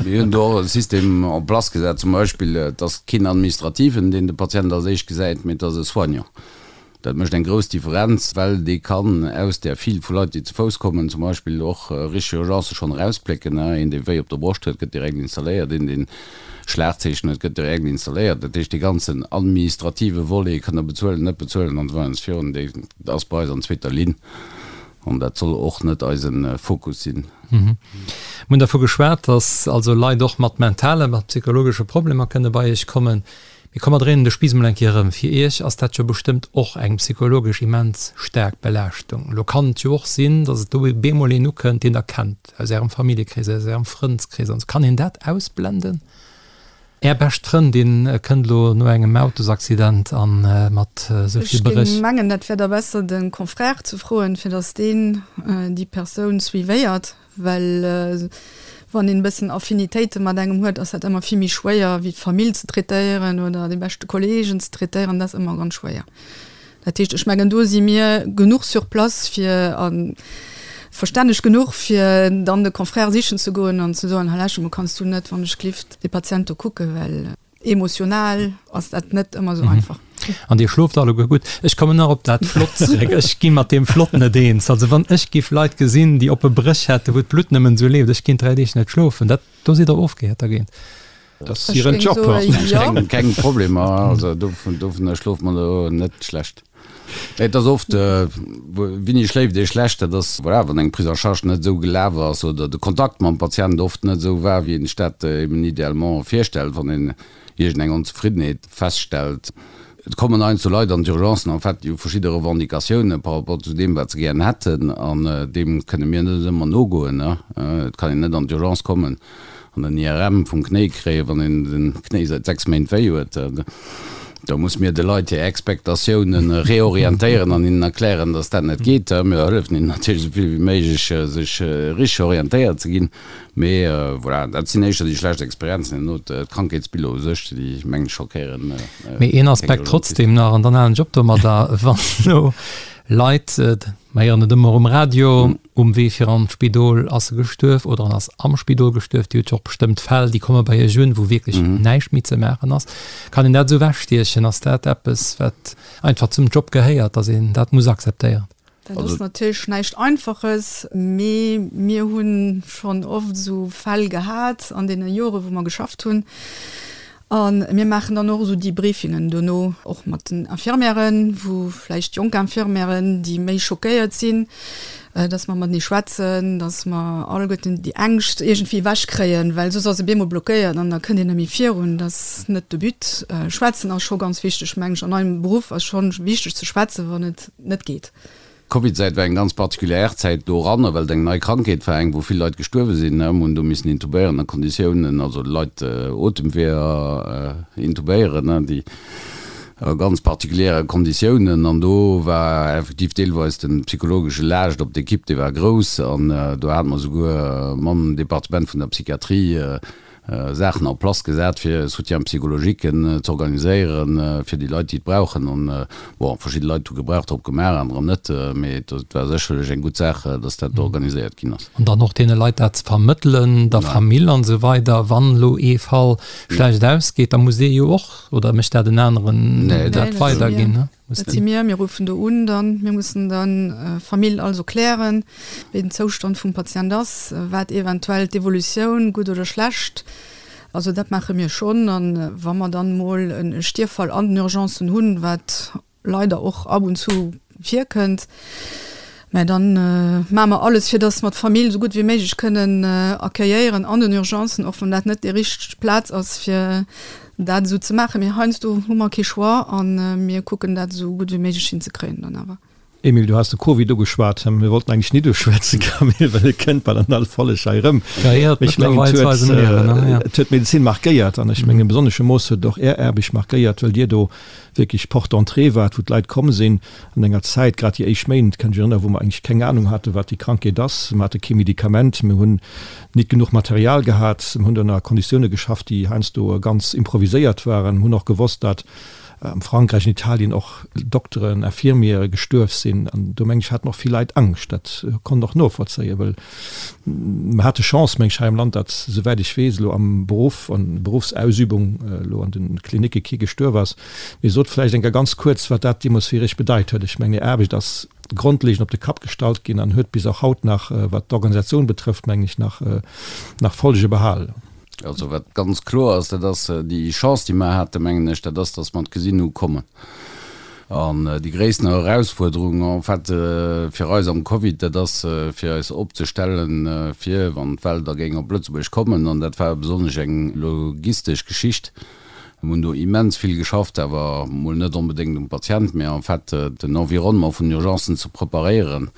Mir hunn do och e System en place gesat, zum Beispill, et ass keen Administrativen, deen de Patient als éischt gesäit, mee et ass e Soignant. Dat mécht eng grouss Differenz, well dee kann aus där File vu Leit, déi ze Fouss kommen, zum Beispill och richteg Urgencë schonn erausplécken. Een, dee wéi op der Broscht huet, gëtt direkt installéiert, een, deen Schlagzeechen huet, gëtt direkt installéiert. Dat heescht, dee ganzen administrative Volet, kann der bezuelen, net bezuelen an esou weider an esou virun, dee ass bei eis an zweeter Linn. An dat soll och net eise Fokus sinn. Mir hunn dervu geschwat, dass also Leit och mat mentalen, mat psychologesche Problemer kënne bei Iech kommen. Mee komm, mer dréinen de Spiiss emol eng Kéier erëm. Fir Iech ass dat jo bestëmmt och eng psychologesch immens staark Belaaschtung. Elo kann et jo och sinn, dass et do bemol een ukënnt, deen Der kennt, aus Ärem Familljekrees, aus Ärem Frëndskrees an esou. Kann een dat ausblenden? Är bescht Frëndin kënnt elo no engem Autosaccident an mat esou vill Bréch. Ech géing mengen, dat wär da besser de Confrère ze froen, fir datt deen déi Persoun suivéiert, well wann een e bëssen Affinitéite mat engem huet, ass dat ëmmer vill méi schwéier wéi d'Famill ze traitéieren oder dee beschte Kolleegen ze traitéieren, dat ass ëmmer ganz schwéier. Dat heescht, ech mengen, do si mir genuch sur place fir a verstänneg genuch, fir dann de Confrère sichen ze goen an ze soen, Hallèche, mo kanns du net, wann ech glift, dee Patient do kucken, well emotional ass dat net ëmmer esou einfach. An Dir schlooft alleguer gutt? Ech kommen nach op dat Flott zréck. Ech gi mat deem Flott net eens. Also wann ech giff Leit gesinn, déi oppe Bréch hätten, wou d'Blutt nëmmen esou leeft, ech kéint 3 Deeg net schlofen. Dat, do sidd Der ofgehäert dergéint. Dat ass hiren Job. Keng, keng Problemer, also dovun, dovunner schloft man elo net schlecht. Et ass oft, wéini schléift ee schlecht, dat ass, voilà, wann eng Prise en charge net esou gelaf ass oder de Kontakt mam Patient oft net esou war, wéi een sech dat eben idéalement virstellt, wann een iergendeng Onzefriddenheet feststellt. Et kommen heiansdo Leit an d'Urgencen, en fait, déi hu verschidde Revendicatiounen par rapport zu deem, wat se gären hätten, an deem kënne mir net ëmmer nogoen. Et kann een net an d'Urgence kommen an en IRM vum Knéi kréien, wann een den Knéi säit 6 Méint wéi huet. Da muss mir de Leit hir Expectatiounen reorientéieren an hinnen erklären, dass dat net geet. Mir hëllefen hinnen natierlech esou vill wéi méiglech, sech richteg orientéiert ze ginn. Mee voilà, dat sinn éischter déi schlecht Experienzen. Herno d'Krankheetsbiller u sech, déi mengen ech schockéieren. Mee een Aspekt trotzdem nach, an dann halen ech op domadder, Wann elo Leit, mer héieren et ëmmer um Radio, Um Wee fir an d'Spidol ass e gestuerf oder en ass am Spidol gestuerf. Dir hutt jo och bestëmmt Fäll, déi komme bei Iech un, wou wierklech näischt méi ze maachen ass. Kann een dat esou ewechstiechen? Ass dat eppes, wat einfach zum Job gehéiert, datt een dat muss akzeptéieren? Dat ass natierlech näischt Einfaches, mee mir hu schonn oft esou Fäll gehat an deene Jore wou mer geschafft hunn. A mir maachen dann och esou Debriefingen dono, och mat den Infirmièren, wou vläicht jonk Infirmièren, déi méi schockéiert sinn, dass mer matenee schwätzen, dass mer alleguerten déi Ängscht iergendwéi ewechkréien, well soss ass e bemol blockéiert an da kënnt een net méi virun. Dat ass net de But. Schwätzen ass scho ganz wichteg, mengen ech. An eisem Beruff ass scho wichteg ze schwätzen, wann et net geet. D'Covidzäit war eng ganz particulière Zäit doranner, well et eng nei Krankheet war, eng wou vill Leit gestuerwe sinn. Mir hunn do missen intubéieren a Konditiounen, also Leit Otemweeër intubéieren, déi. A ganz particuliere Konditiounen. An do war effektiv deelweis de psychologesche Laascht op d'Ekipp, dee war grouss. An do hate mer souguer mam Departement vun der Psychiatrie Saachen en place gesat, fir Soutien psychologique z'organiséieren fir déi Leit, déi et brauchen. An bon, verschidde Leit hu Gebrauch drop gemaach, anerer net. Mee et war sécherlech eng gutt Saach, dass dat organiséiert ginn ass. An dann och deene Leit dat ze vermëttelen, der Famill an esou weider. Wann elo ee Fall schlecht ausgeet, da muss dee jo och Oder mécht dat en aneren dat weiderginn? Ne? Dat si mir, mir ruffen do un dann. Mir mussen dann Famill alles erklären, wéi den Zoustand vum Patient ass, wat eventuell d'Evolutioun, gutt oder schlecht. Also dat maache mir schonn. An wa mer dann mol e Stierffall an den Urgencen hunn, wat leider och ab und zu virkënnt, mä dann maache mer alles, fir dass mer d'Famill esou gutt wéi méiglech kënnen accueilléieren an den Urgencen, och wann dat net déi richteg Plaz ass, fir dat esou ze maachen. Mee heiansdo hu mer kee Choix a mir kucken dat esou gutt wéi méiglech hinzekréien dann awer. Emile, du has de Covid ugeschwat. Mir wollten eigentlech nit uschwätzen, Camille, well e kënnt bal an all Folleg hei erëm. Mee ech mengen, et huet, et huet d'Medezin markéiert an ech mengen, besonnesche Mooss huet et och Är Aarbecht markéiert, well Dir do wierklech Porte d'entrée waart, wou d'Leit komm sinn an enger Zäit, grad déi éischt Méint, kann ech mech erënneren, wou mer eigentlech keng Anung haten, wat déi Krankheet ass. Mer hate kee Medikament, mir hunn nit genuch Material gehat, mir hunn ënner Konditioune geschafft, déi heiansdo ganz improviséiert waren. Mir hunn och gewosst, dat am Frankräich, an Italien och Dokteren, Infirmiere gestuerf sinn. An do, meng ech, haten och vill Leit Angscht. Dat konnt och novollzéien, well mer hate Chance, meng ech, hei am Land, datt, souwäit ech weess, elo am Beruff, an Beruffsausübung, elo an de Klinicke kee gestuerf ass. Mee sot vläicht eng Kéier ganz kuerz, wat dat deemools fir Iech bedeit huet. Ech mengen, Är Aarbecht ass grondlegend op de Kapp gestallt ginn an huet bis och haut nach, wat d'Organisatioun betrëfft, mengen ech, nach, nach Folge behalen. Also wat ganz kloer ass, dat ass déi Chance, déi mer haten, mengen ech, dat ass, datt mer et gesinn hu kommen. An déi gréissten Erausfuerderung en fait fir eis am Covid, dat ass fir eis opzestellen, fir wann d'Well da géing op Lëtzebuerg kommen. An dat war besonnesch eng logistesch Geschicht. Mir hunn do immens vill geschafft, awer mol net onbedéngt um Patient, mä en fait den Environnement vun den Urgencen ze preparéieren.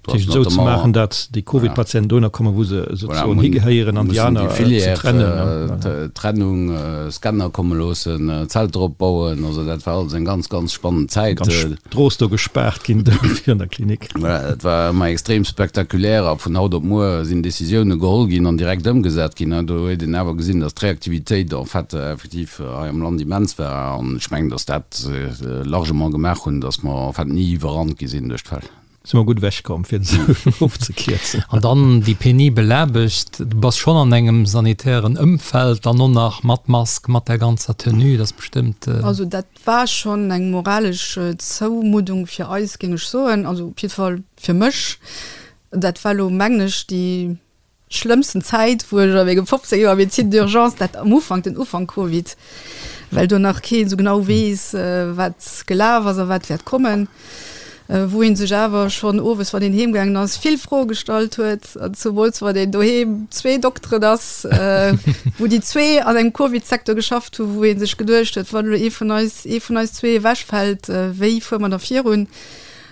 Dat heescht esou ze maachen, datt déi Covid-Patienten dohinner kommen, wou se souzesoen higehéieren an déi aner ze trennen. Trennung, Scanner komme loossen, Zelter opbauen, also dat war alles eng ganz, ganz spannend Zäit. Ganz Strooss do gespaart ginn do virun der Klinik. Voilà, dat war ëmmer extrem spektakulär a vun haut op muer sinn Decisioune geholl ginn an direkt ëmgesat ginn. Do huet een awer gesinn, datt d'Reaktivitéit en fait effektiv hei am Land immens war an ech mengen, datt dat largement gemaach hunn, datt mer en fait ni iwwerrannt gi sinn duerch d'Fäll. Si mer gutt ewech komm, fir et esou ofzekierzen. An dann déi penibel Aarbecht, du bass schonn an engem sanitären Ëmfeld, dann och nach mat Mask, mat där ganzer Tenue, dat ass bestëmmt. Also dat war schonn eng moralesch Zoumuddung fir eis, géing ech soen, also op jidde Fall fir mech. Dat war elo, mengen ech, déi Schlëmmsten Zäit wou ech a mengem 15 Joer Médecine d'urgence, dat am Ufank, den Ufank Covid, well do nach keen esou genau weess wat gelaf ass a wat wäert kommen, wou een sech awer schonn owes wann een heem gaangen ass vill Froe gestallt huet, an zemools wann een doheem zwee Dokteren ass, wou déi zwee an engem Covid-Secteur geschafft hu wou ee sech geduecht huet, wann elo ee vun eis, ee vun eis zwee ewechfält, wéi fuere mer da virun?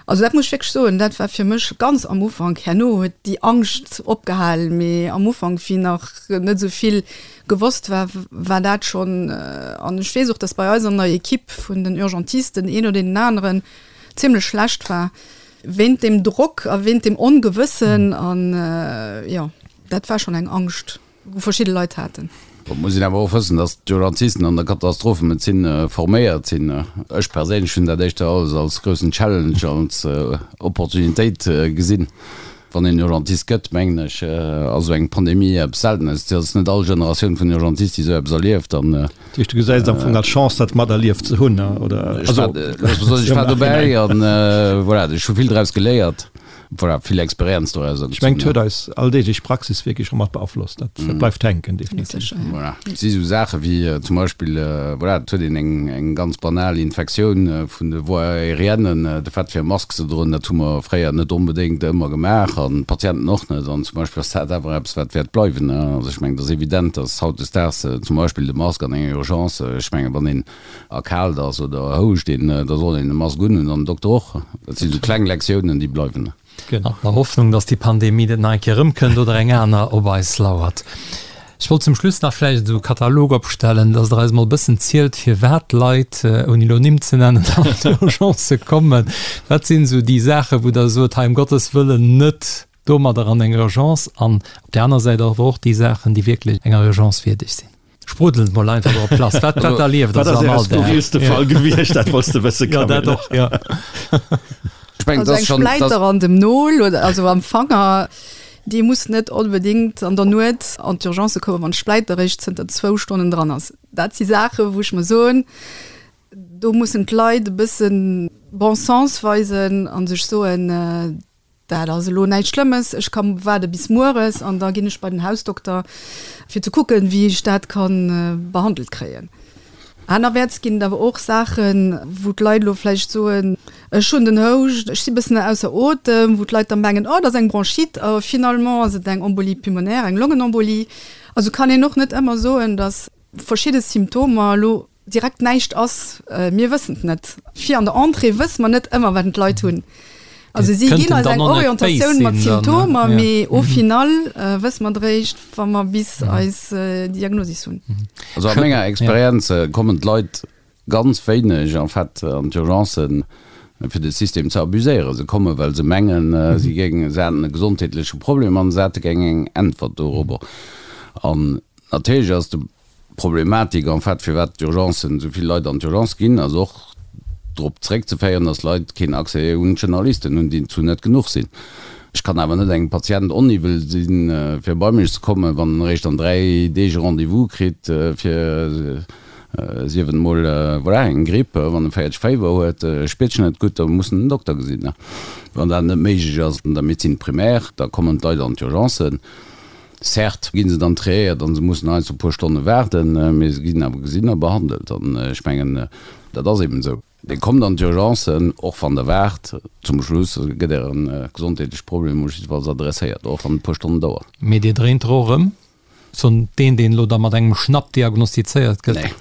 Also dat muss ech wierklech soen, dat war fir mech ganz am Ufank, herno huet déi Angscht opgehal, mee am Ufank, wéi nach net esou vill gewosst war, war dat schonn, an ech weess och, datt bei eis an der Equipe vun den Urgentisten een oder deen aneren zimlech schlecht war wéint deem Drock a wéint deem Ongewëssen an jo, dat war schonn eng Angscht. Wou verschidde Leit haten. Et muss een awer och wëssen, datt d'Urgentisten an der Katastrophemedezin forméiert sinn. Ech perséinlech hunn dat éischter alles als groussen Challenge, als Opportunitéit gesinn. Wann een Urgentist gëtt, mengen ech, ass esou eng Pandemie eppes Seltenes. Et ass net all Generatioun vun Urgentist, déi esou eppes erlieft. An Dat heescht, du gesäis et am Fong als Chance, dat materlieft ze hunn, oder? Ech war dobäi an voilà, ech hu vill draus geléiert. Voilà, vill Experienz doraus Ech mengen, et huet eis alldeeglech Praxis wierklech scho mat beaflosst. Dat bleift hänken, definitiv. Voilà. Et si sou Saache wéi zum Beispill, voilà, et huet een eng, eng ganz banal Infektioun vun de Voies aériennes, de Fait fir e Mask ze droen, dat hu mer fréier net onbedéngt ëmmer gemaach an d'Patienten och net. An zum Beispill ass dat awer eppes, wat wäert bleiwen. Also ech mengen, et ass evident, dass hautdesdaags zum Beispill de Mask an enger Urgence, ech mengen, wann een erkaalt ass oder houscht een, da soll een e Mask unhunn an den Dokter och. Dat sinn esou kleng Lektiounen, déi bleiwen. An der Hoffnung, dass déi Pandemie net nach eng Kéier erëmkënnt oder eng aner op eis lauert. Ech wollt zum Schluss nach vläicht esou e Katalog opstellen, dass Der eis emol e bëssen zielt, firwat d'Leit, ouni elo Nimm ze nennen, an d'Urgencë kommen. Wat sinn esou déi Saachen, wou Der sot, hei ëm Gottes Wëllen net domadder an eng Urgence, an op där aner Säit awer och déi Saachen, déi wierklech enger Urgence wierdeg sinn. Sprudelt mol einfach drop lass, wat wat erlieft Der sou am Alldag? Wat ass Äre skurrilste Fall gewiescht? Dat wollts de wësse, Camille. Jo, dat och, jo. Ech mengen, Also eng Spläiter an dem Nol oder also am Fanger, déi muss net onbedéngt an der Nuet an d'Urgence kommen, wann d'Spläiter eréischt zënter zwou Stonnen dran ass. Dat si Saachen, wou ech mer soen, do mussen d'Leit e bësse Bon sens weisen a sech soen, Dat ass elo näischt Schlëmmes, ech ka waarde bis mueres an da ginn ech bei den Hausdokter, fir ze kucken, wéi ech dat ka behandelt kréien. Anerwäerts ginn et awer och Saachen, wou d'Leit elo vläicht soen, ech hunn den Houscht, ech si bëssen ausser Otem, wou d'Leit da mengen, oh, dat ass eng Bronchite, a finalement ass et eng Embolie pulmonaire, eng Longenembolie. Also kann een och net ëmmer soen, datt verschidde Symptomer elo direkt näischt ass, mir wëssen et net. Fir an der Entrée wësse mer net ëmmer, wat d'Leit hunn. Also si ginn eis eng Orientatioun mat Symptomer, mee au final wësse mer et eréischt, wa mer bis eis Diagnosis hunn. Also a menger Experienz kommen d'Leit ganz wéineg en fait an d'Urgencen, fir de System ze abuséieren. Se kommen, well se mengen, si géingen, se hätten e gesondheetleche Problem an se hätte gär eng Äntwert dorobber. An natierlech ass de D'Problematik en fait, firwat d'Urgencen, esou vill Leit an d'Urgence ginn, ass och drop zeréckzeféieren, dass Leit keen Accès un d'Generalisten hunn, déi zu net genuch sinn. Ech kann awer net engem Patient oniwwel sinn, fir bei mech ze kommen, wann en eréischt an 3 Deeg e Rendez-vous kritt fir, sief et emol, voilà, eng Gripp, wann e 40 Féiwer huet, spiert sech net gutt, da muss en den Dokter gesinn. Wann dat net méiglech ass an der Médecine primaire, da kommen d'Leit an d'Urgencen. Certes gi se dann triéiert an se mussen heiansdo e puer Stonne waarden, mee se ginn awer gesinn a behandelt. An ech mengen, dat ass eben esou. Dir kommt an d'Urgencen, och wann Der waart. Zum Schluss gëtt Äre gesondheetleche Problem jiddefalls adresséiert, och wann et e puer Stonnen dauert. Mee Dir dréint der och erëm Soen deen, deen elo da mat engem Schnapp diagnostizéiert gëtt? Nee.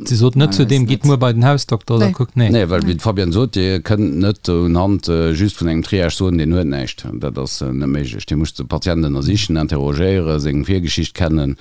Si sot net zu deem, gitt muer bei den Hausdokter oder kuckt, nee. Nee, well wéi d'Fabienne sot, Dir kënnt net unhand just vun engem Triage soen, deen huet näischt. Dat ass net méiglech. Dir musst de Patient ënnersichen, interrogéieren, seng Virgeschicht kennen,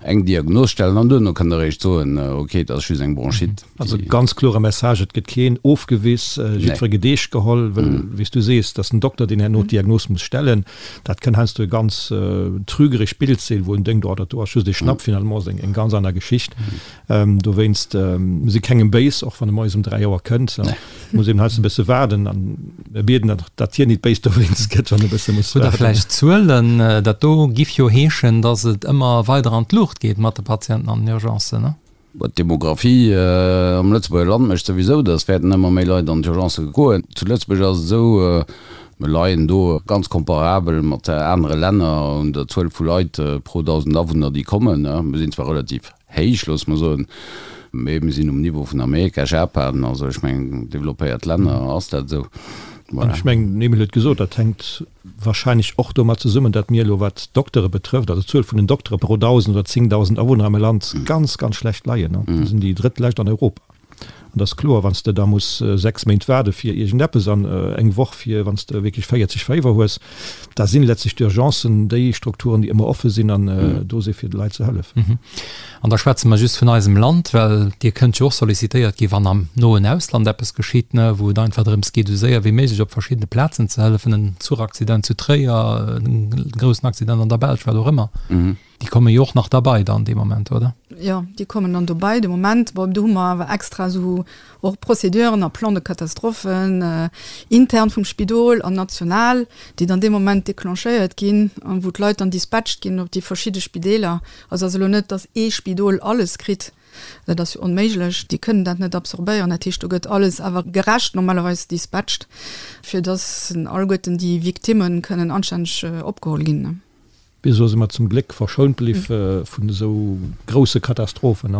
eng Diagnos stellen an duerno kënnt Der eréischt soen, ok, et ass just eng Bronchite. Also ganz klore Message, et gëtt keen ofgewiss, jiddwer gëtt eescht geholl, well wéi s du sees, et ass den Dokter, deen herno d'Diagnos muss stellen. Dat kënn heiansdo e ganz trügerecht Bild sinn, wou en denkt, oh dat do ass just e Schnapp, finalement ass et eng ganz aner Geschicht. Dowéinst, mir si kengem béis, och wann e moies um 3 Auer kënnt, muss eben heiansdo e bësse waarden an mir bieden, datt hien nit béis dowéinst gëtt, wann e bësse muss waarden. Hutt Der vläicht Zuelen? Dat do giff jo heeschen, datt et ëmmer weider an d'Luucht geet mat de Patienten an den Urgencen, ne? D'Demographie am Lëtzebuerger Land mécht souwisou, datt wäerten ëmmer méi Leit an d'Urgencë goen. Zu Lëtzebuerg ass et esou, mir leien do ganz comparabel mat anere Länner un der Zuel vu Leit pro 1.000 Awunner, déi kommen. Mir sinn zwar relativ héich, loosse mer soen, mee mir sinn um Niveau vun Amerika, Japan, also ech mengen developpéiert Länner ass dat esou. An ech mengen, den Emile huet gesot, dat hänkt Wahrscheinlech och domat zesummen, datt mir elo, wat d'Doktere betrëfft, also d'Zuel vun den Doktere pro 1.000 oder 10.000 Awunner am Land, ganz, ganz schlecht leien. Mir sinn déi drëttlescht an Europa. An et ass kloer, wann s de da muss 6 Méint waarde fir iergendeppes an eng Woch fir wann s de wierklech 40 Féiwer hues, da sinn letztlech d'Urgencen déi Strukturen, déi ëmmer offe sinn an do si fir de Leit ze hëllefen. An da schwätze mer just vun eisem Land, well Dir kënnt jo och sollicitéiert ginn, wann am noen Ausland eppes geschitt, ne, wou et einfach drëms geet, esou séier wéi méiglech op verschiddene Plazen ze hëllefen, en Zuchaccident zu Tréier, en groussen Accident an der Belsch, wat och ëmmer. Déi komme jo och nach derbei dann dee Moment, oder? Jo, déi kommen dann dobei de Moment. Bon, do hu mer awer extra esou och Procéduren a Plans de catastrophe intern vum Spidol an national, déi dann dee Moment déclenchéiert ginn an wou d'Leit dann dispatcht ginn op déi verschidde Spideeler. Also ass elo net, datt ee Spidol alles kritt, dat ass jo onméiglech, déi kënnen dat net absorbéieren. Dat heescht, do gëtt alles awer gerecht normalerweis dispatcht, fir datt alleguerten déi Victimme kënnen anstänneg opgeholl ginn. Bis elo si mer zum Gléck verschount bliw vun esou grousse Katastrophen.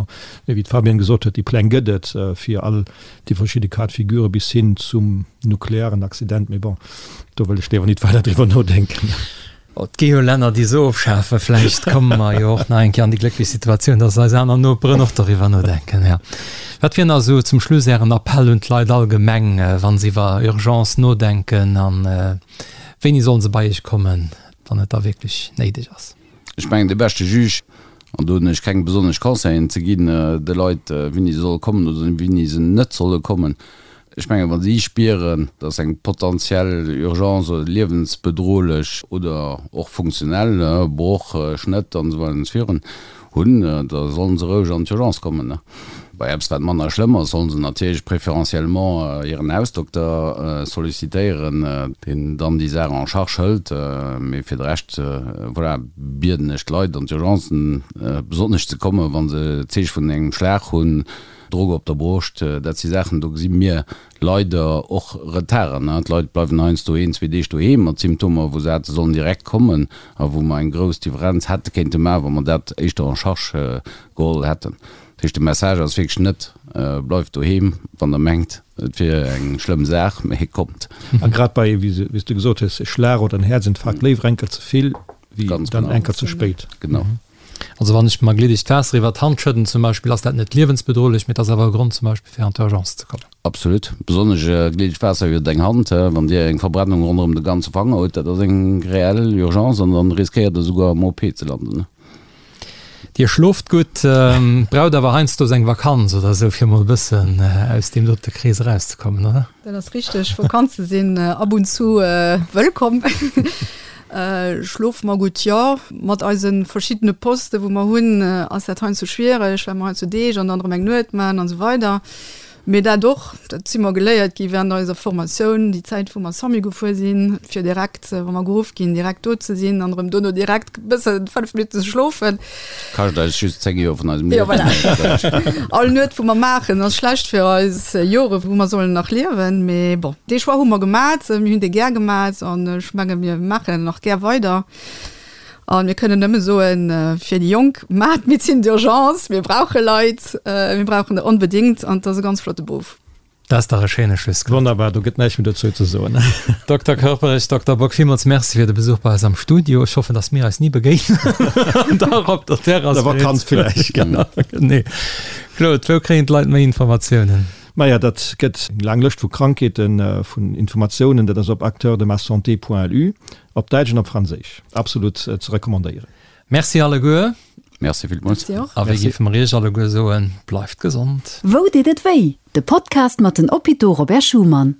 Mee wéi d'Fabienne gesot huet, déi Pläng gëtt et fir all déi verschidde Cas de figure bis hin zum nuklearen Accident. Mee bon, do wëll ech léiwer nit weider driwwer nodenken. Et gi jo Länner, déi se ofschafen. Vläicht komme mer jo och nach eng Kéier an déi glécklech Situatioun, dass eis aner Noperen och doriwwer nodenken. Jo. Wat wier nach esou zum Schluss Ären Appell un d'Leit allgemeng, wa se iwwer Urgence nodenken? A wéini solle se bei Iech kommen? wann et da wierklech néideg ass. Ech mengen, de beschte Juge. An do hunn ech keng besonnesch Conseillen ze ginn de Leit, wéini se solle kommen oder wéini se net solle kommen. Ech mengen, wa si spieren, dass eng potentiell Urgence oder liewensbedrohlech oder och funktionell, Broch, Schnëtt an esou weider an esou virun, hunn, da sollen se roueg an d'Urgence kommen. Bei eppes, wat manner schlëmm ass, sollen se natierlech préférentiellement hiren Hausdokter sollicitéieren, deen dann déi Saach en charge hëlt. Mee fir de Rescht, voilà, bieden ech d'Leit, an d'Urgencen besonnesch ze kommen, wa se Zeeche vun engem Schlag hunn, Drock op der Broscht, dat si Saachen, do gesi mir leider och Retarden. D'Leit bleiwen heiansdo een, zwee Deeg doheem mat Symptomer, wou se hätte sollen direkt kommen a wou mer eng grouss Differenz hätte kéinte maachen, wa mer dat éischter en charge geholl hätten. Dat heescht, de Message ass wierklech net, Bleift doheem, wann Der mengt, et wier eng schlëmm Saach, mee kommt. A grad bei, wéi s du gesot hues, e Schlag oder en Häerzinfarkt, léiwer enker ze vill wéi dann enker ze spéit. Genau. Also wann ech mer gliddegt Waasser iwwer d'Hand schëdden zum Beispill, ass dat net liewensbedrohlech, mee et ass awer e Grond zum Beispill fir an d'Urgence ze kommen. Absolut. Besonnesch gliddegt Waasser iwwer eng Hand, wann Dir eng Verbrennung ronderëm de ganze Fanger hutt, dat ass eng reell Urgence an dann riskéiert Der souguer am OP ze landen. Dir schlooft gutt, braucht awer heiansdo eng Vakanz oder esou fir mol e bëssen aus deem dote Krees erauszekommen, oder? Dat ass richteg, Vakanze sinn ab und zu wëllkomm. Schlofe mer gutt? Jo. Mat eise verschiddene Poste wou mer hunn, ass dat heiansdo schwiereg, well mer heiansdo Deeg an dann erëm eng Nuet maachen an esou weider. Mee dat och, dat si mer geléiert gi während eiser Formatioun, déi Zäit wou mer SAMU gefuer sinn, fir direkt, wa mer geruff ginn, direkt do ze sinn an erëm dono direkt e bëssen 5 Minutten ze schlofen. Kascht eis just 10 Joer vun eisem Liewen. Jo, voilà. All Nuet wou mer maachen ass schlecht fir eis Jore wou mer sollen nach liewen. Mee bon, dee Choix hu mer gemat, mir hunn dee gär gemat an ech menge mir maachen en nach gär weider. A mir kënnen nëmme soen, fir déi Jonk, maacht Médecine d'urgence, mir brauche Leit, mir brauchen der onbedéngt an et ass e ganz flotte Beruff. Dat ass dach e schéine Schlusswuert. Wonnerbar, do gëtt näischt méi dozou ze soen. Dokter Körperich, Dokter Bock, villmools Merci fir de Besuch bei eis am Studio. Ech hoffen, dass mir eis ni begéinen an dach op der Terrass. Der Vakanz villäicht. Genau, genee. Claude, wou kréien d'Leit méi Informatiounen? Maja, dat gëtt eng laang Lëscht vu Krankheeten, vun Informatiounen. Dat ass op acteursdemasanté.lu, op Däitsch an op Franséisch. Absolut ze recommandéieren. Merci alleguer. Merci villmools. Merci och. A wéi géife mer Iech alleguer soen, bleift gesond. Wou deet et wéi? De Podcast mat den Hôpitaux Robert Schuman.